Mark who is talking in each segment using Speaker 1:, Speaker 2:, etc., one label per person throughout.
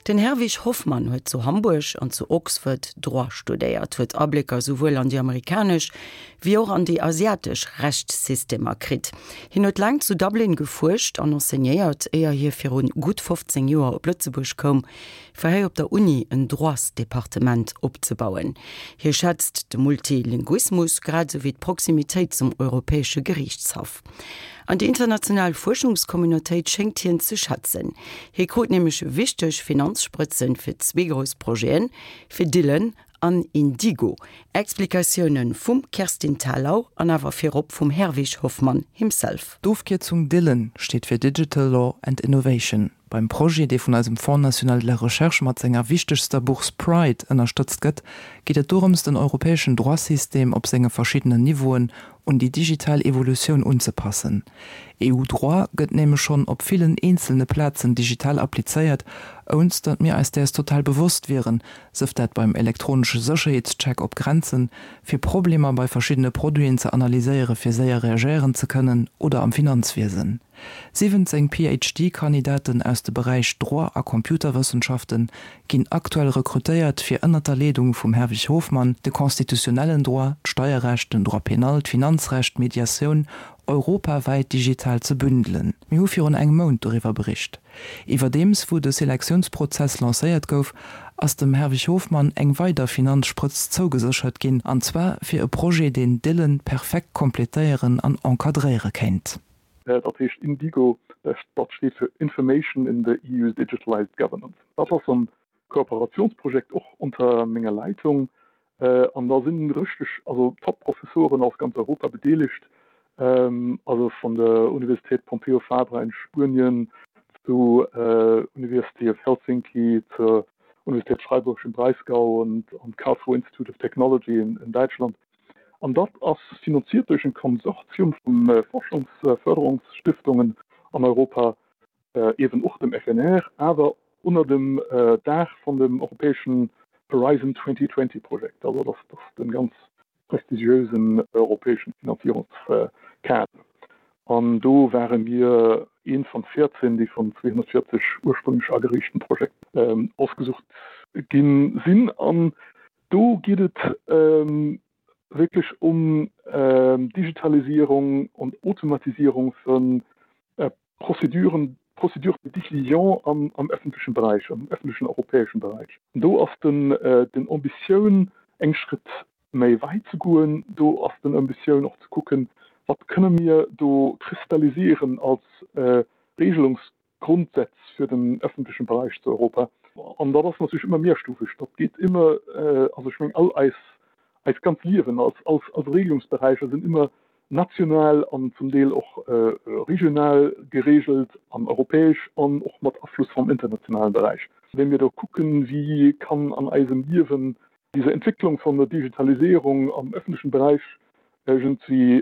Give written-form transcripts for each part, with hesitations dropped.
Speaker 1: Den Herwig Hofmann huet zu Hamburg an zu Oxford Droit studéiert, huet Ablécker souwuel an déi amerikanesch wéi och an déi asiatesch Rechtssystemer kritt. Hien huet laang zu Dublin gefuerscht an enseignéiert, éier hie virun gutt 15 Joer op Lëtzebuerg koum, fir hei op der Uni en Droitsdepartement opzebauen. Hie schätzt de Multilinguismus grad esou wéi d'Proximitéit zum Europäesche Geriichtshaff. An déi international Fuerschungscommunautéit schéngt hien ze schätzen. Hie krut nämlech wichteg Finanzsprëtzen fir zwee grouss Projeten, fir Dillen an Indigo. Explikatioune vum Kerstin Thalau an awer virop vum Herwig Hofmann himself.
Speaker 2: D'Ofkierzung Dillen steet fir Digital Law and Innovation. Beim Projet, dee vun eisem Fonds national de la recherche mat senger wichtegster Bourse Pride ënnerstëtzt gëtt, geet et dorëms, den europäeschen Droit-System op senge verschiddenen Niveauen un déi digital Evolutioun unzepassen. EU-Droit gëtt nämlech schonn op villen eenzelne Plazen digital applizéiert, ounst datt mir eis däers total bewosst wieren, sëf dat beim elektronesche Sécherheetscheck op Grenzen, fir Problemer bei verschiddene Produiten ze analyséiere fir séier reagéieren ze kënnen, oder am Finanzwiesen. 17 PhD-Kandidaten aus de Beräich Droit a Computerwëssenschafte ginn aktuell rekrutéiert, fir ënnert der Leedung vum Herwig Hofmann de constitutionnellen Droit, d'Steierrecht, den Droit pénal, d'Finanzrecht, d'Mediatioun europawäit digital ze bündelen. Mir hu virun engem Mount doriwwer bericht. Iwwerdeems wou de Selektiounsprozess lancéiert gouf, ass dem Herwig Hofmann eng weider Finanzsprëtz zougeséchert ginn, an zwar fir e Projet, deen Dillen perfekt kompletéieren an encadréiere kéint.
Speaker 3: Dat heescht Indigo, dat steet fir Information in the EU's Digitalized Governance. Dat ass en Kooperationsprojekt och unter menger Leitung an da sinn richteg, also Top-Professoren aus ganz Europa bedeelegt, also vun der Universität Pompeu Fabra in Spuenien zu University of Helsinki, zur Universität Freiburg im Breisgau und am Karlsruhe Institute of Technology in Däitschland. An dat ass finanziert duerch en Konsortium vu Forschungsförderungsstiftungen an Europa, eeben och dem FNR, awer ënner dem Daach vun dem europäeschen Horizon 2020 Projekt. Also dat ass de ganz prestigiösen europäeschen Finanzierungskader. An do ware mir eent vun 14, déi vun 240 ursprünglech ageriichten Projekten ausgesucht ginn sinn. An Do geet et wierklech um Digitalisierung und Automatisierung vu Prozeduren, Procédures de décision am öffentlechen Beräich, am öffentlechen europäeschen Beräich. Do ass den Ambitioun eng Schrëtt méi wäit ze goen. Do ass den Ambitioun och ze kucken, wat kënne mir do kristallisieren als Regelungs Grondsätz für den öffentlichen Bereich zu Europa. An dat ass natierlech ëmmer mehrstufeg. Dat geet ëmmer, also ech mengen all eis, eist ganz Liewen als, als, als Regelungsberäicher sinn ëmmer national an zum Deel och regional geregelt an europäesch an och mat Afluss vom internationalen Bereich. Wa mir do kucken, wéi kann an eisem Liewen diese Entwicklung von der Digitalisierung am öffentlichen Bereich iergendwéi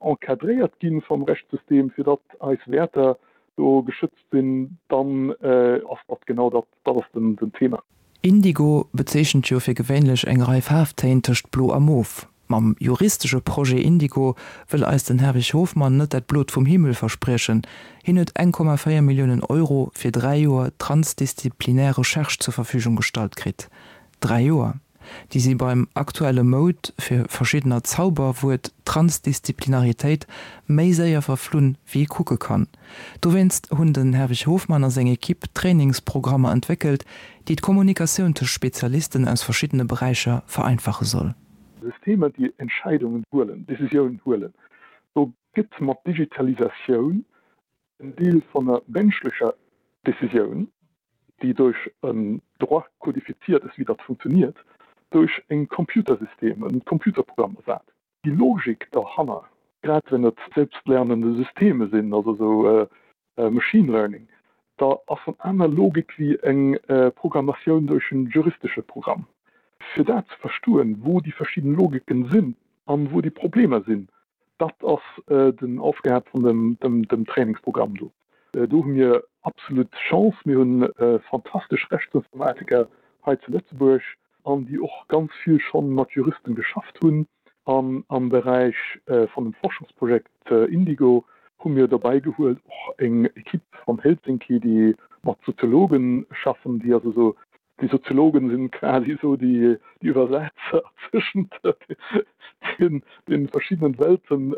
Speaker 3: encadréiert gi vum Rechtssystem, fir datt eis Wäerter do geschützt sinn, dann ass dat genau dat, dat ass den Thema.
Speaker 2: Indigo bezeechent jo fir gewéinlech eng Rei Faarftéin tëscht Blo a Mof. Mam juristesche Projet Indigo wëll eis den Herwig Hofmann net dat Blot vum Himmel verspriechen. Hien huet 1,4 Milliounen Euro fir 3 Joer transdisziplinär Recherche zur Verfügung gestallt kritt. 3 Joer! Déi si beim aktuelle Moud fir verschiddener Zauberwuert Transdisziplinaritéit méi séier verflunn, wéi ee kucke kann. Dowéinst hunn den Herwig Hofmann a seng Equipe Trainingsprogrammer entwéckelt, déi d'Kommunikatioun tëscht Spezialisten aus verschiddene Beräicher vereinfache soll.
Speaker 3: Systemer, déi Entscheidungen huelen, Decisiounen huelen, do gëtt mat Digitalisatioun En Deel von der menschlecher Decisioun, déi duerch en Droit codifiziert ass, wéi dat funktioniert, duerch e Computersystem, en Computerprogramm ersat. Déi Logik derhanner, grad wenn et selbstlernende Systeme sinn, also esou Machine Learning, da ass en aner Logik wéi eng Programmatioun duerch en juristesche Programm. Fir dat ze verstoen, wou déi verschidden Logiken sinn an wou déi Problemer sinn, Dat ass den Aufgab vun dem Trainingsprogramm do. Do hu mir absolut Chance. Mir hunn fantastesch Rechtsinformatiker hei zu Lëtzebuerg an déi och ganz vill schonn mat Juristen geschafft hunn. An am Beräich vun dem Forschungsprojekt Indigo hu mir dobäi gehuelt och eng Equipe van Helsinki, déi. mat Soziologen schaffen, déi also esou, déi Soziologen sinn quasi esou déi Iwwersetzer zwëschent den verschiddenen Welten,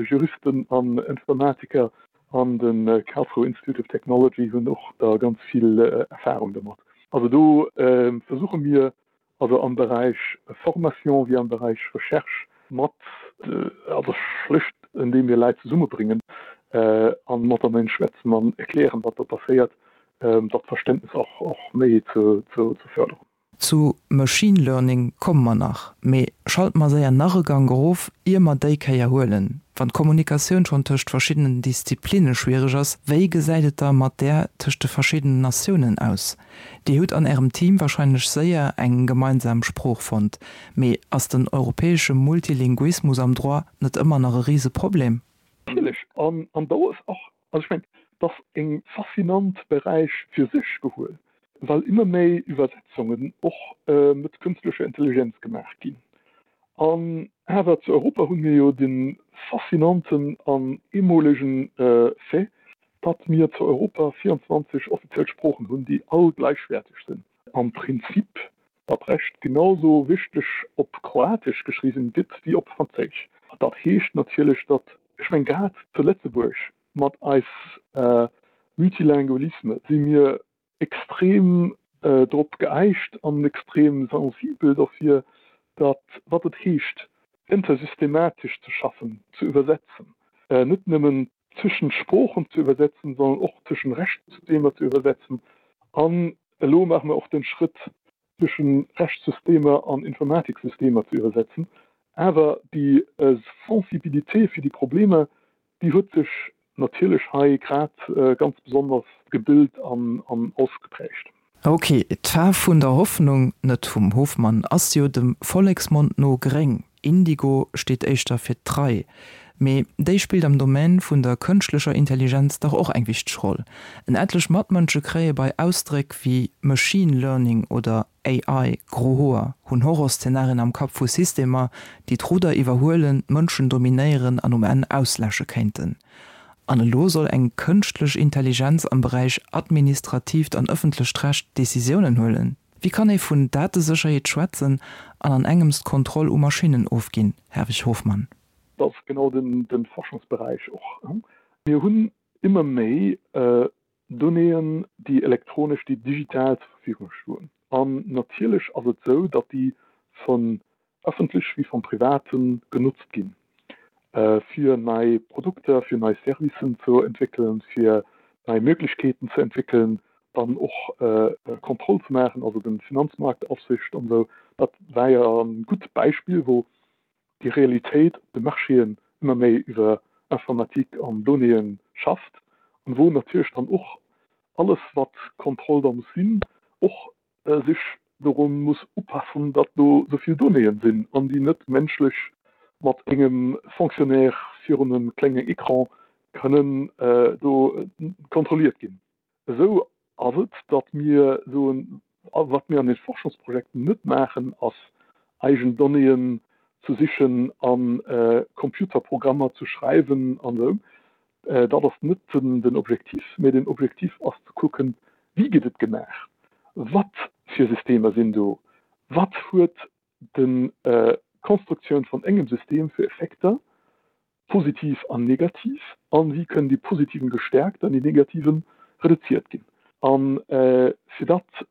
Speaker 3: Juristen an Informatiker an de Karlsruhe Institute of Technology hunn och da ganz vill Erfahrung domat. Also do versuche mir also am Beräich Formation wéi am Beräich Recherche mat, also schlicht andeem mir Leit zesummebréngen a mateneen schwätzen an erklären, wat do passéiert, dat Verständnis och méi ze förderen.
Speaker 2: Zu Machine Learning komme mer nach, mee schalte mer séier nach e Gank erof, ier mer déi Kéier huelen. Wann d'Kommunikatioun schonn tëscht verschiddenen Disziplinne schwiereg ass, wéi gesäit et da mat där tëscht de verschiddenen Natiounen aus? Dir hutt an Ärem Team warscheinlech séier eng gemeinsam Sprooch fonnt, mee ass den europäesche Multilinguismus am Droit net ëmmer nach e Riseproblem?
Speaker 3: Natierlech, an do ass och, also ech mengen, et ass e faszinant Beräich fir sech gehuel, well ëmmer méi Iwwersetzungen och mat kënstlecher Intelligenz gemaach ginn. An awer zu Europa hu mir jo de faszinanten an eemolegen Fait, datt mir zu Europa 24 offiziell Sproochen hunn, déi all gläichwäerteg sinn. Am Prinzip dat Recht genau sou wichteg op Kroatesch geschriwwen gëtt wéi op Franséisch. Dat heescht natierlech, datt, ech meng grad zu Lëtzebuerg mat eis Multilingualisme si mir extrem drop geeicht an extrem sensibel dofir, datt wat et heescht intersystematesch ze schaffen, ze iwwersetzen, net nëmmen tëschent Sproochen ze iwwersetzen, sondern och tëschent Rechtssystemer ze iwwersetzen. An elo maache mer och den Schrëtt, tëschent Rechtssystemer an Informatiksystemer ze iwwersetzen. Awer déi Sensibilité fir déi Problemer, déi huet sech natierlech hei grad ganz besonders gebilt an ausgeprägt.
Speaker 2: Ok, d'Faarf vun der Hoffnung, net vum Hofmann, ass jo dem Volleksmond no gréng. Indigo steet éischter fir d'Trei. Mee déi spillt am Domaine vun der kënschtlecher Intelligenz dach och eng wichteg Roll. En etlech Matmënsche kréie bei Ausdréck wéi Machine Learning oder AI gro Hoer, hunn Horrorszenarien am Kapp vu Systemer, déi d'Rudder iwwerhuelen, d'Mënschen dominéieren an um Enn ausläsche kéinten. An elo soll eng kënschtlech Intelligenz am Beräich administratiivt an ëffentlecht Recht Decisiounen huelen? Wéi kann ee vun Datesécherheet schwätzen an an engems d'Kontroll u Maschinnen ofginn, Herwig Hofmann?
Speaker 3: Dat ass genau de Forschungsberäich och. Mir hunn ëmmer méi Donnéeën, déi elektronesch, déi digital zur Verfügung stoen. An natierlech ass et esou, datt déi vun ëffentlech wéi vum Private genotzt ginn, fir nei Produkter, fir nei Servicen ze entwéckelen, fir nei Möglichkeeten ze entwéckelen, dann och Kontroll ze maachen, also de Finanzmarktaufsicht an esou. Dat war jo e gutt Beispill, wou déi Realitéit op de Marchéen ëmmer méi iwwer Informatik an Donnéeën schafft an wou natierlech dann och alles, wat Kontroll da muss sinn, och sech doru muss upassen, datt do esou vill Donnéeën sinn an déi net menschlech mat engem Fonctionnaire virun e klenge Ecran kënnen do kontrolliert ginn. Esou ass et, datt mir soen, wat mir an de Forschungsprojekten net maachen, ass eigen Donnéeën ze sichen a Computerprogrammer ze schreiwen an esou. Dat ass net den Objektiv, mee den Objektiv ass ze kucken, wéi gëtt et gemaach, wat fir Systemer sinn do, wat huet d'Konstruktioun vun engem System fir Effekter, positiv an negativ, an wéi kënnen déi positiven gestärkt an déi negativen reduziert ginn. An fir dat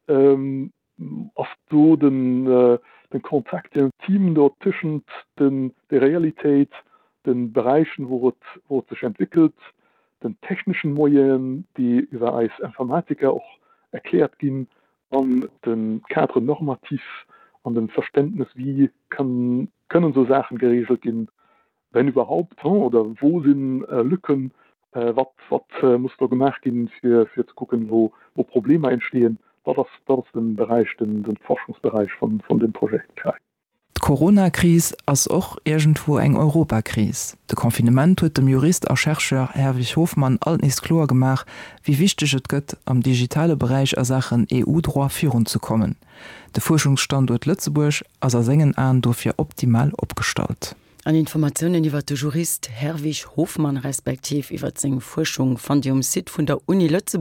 Speaker 3: ass do den Contact intime do tëschent der Realitéit, de Beräichen, wou et wou et sech entwéckelt, den techneschen Moyenen, déi iwwer eis Informatiker och erkläert ginn, an de Cadre normatif an dem Verständnes, wéi kann kënnen esou Saachen geregelt ginn, wenn überhaupt, oder wou si Lücken, wat wat muss do gemaach ginn, fir fir ze kucken, wou wou Problemer entstehen. Dat ass dat ass de Beräich, den de Forschungsberäich vun vun deem Projet CRAI.
Speaker 2: D'Corona-Kris ass och iergendwou eng Europakris. De Confinement huet dem Jurist a Chercheur Herwig Hofmann alt nees kloer gemaach, wéi wichteg et gëtt, am digitale Beräich a Saachen EU-Droit virunzekommen. De Fuerschungsstanduert Lëtzebuerg ass a sengen Aen dofir optimal opgestallt.
Speaker 1: An Informatiounen iwwer de Jurist Herwig Hofmann respektiv iwwer seng Fuerschung fannt Dir um Site vun der Uni Lëtzebuerg.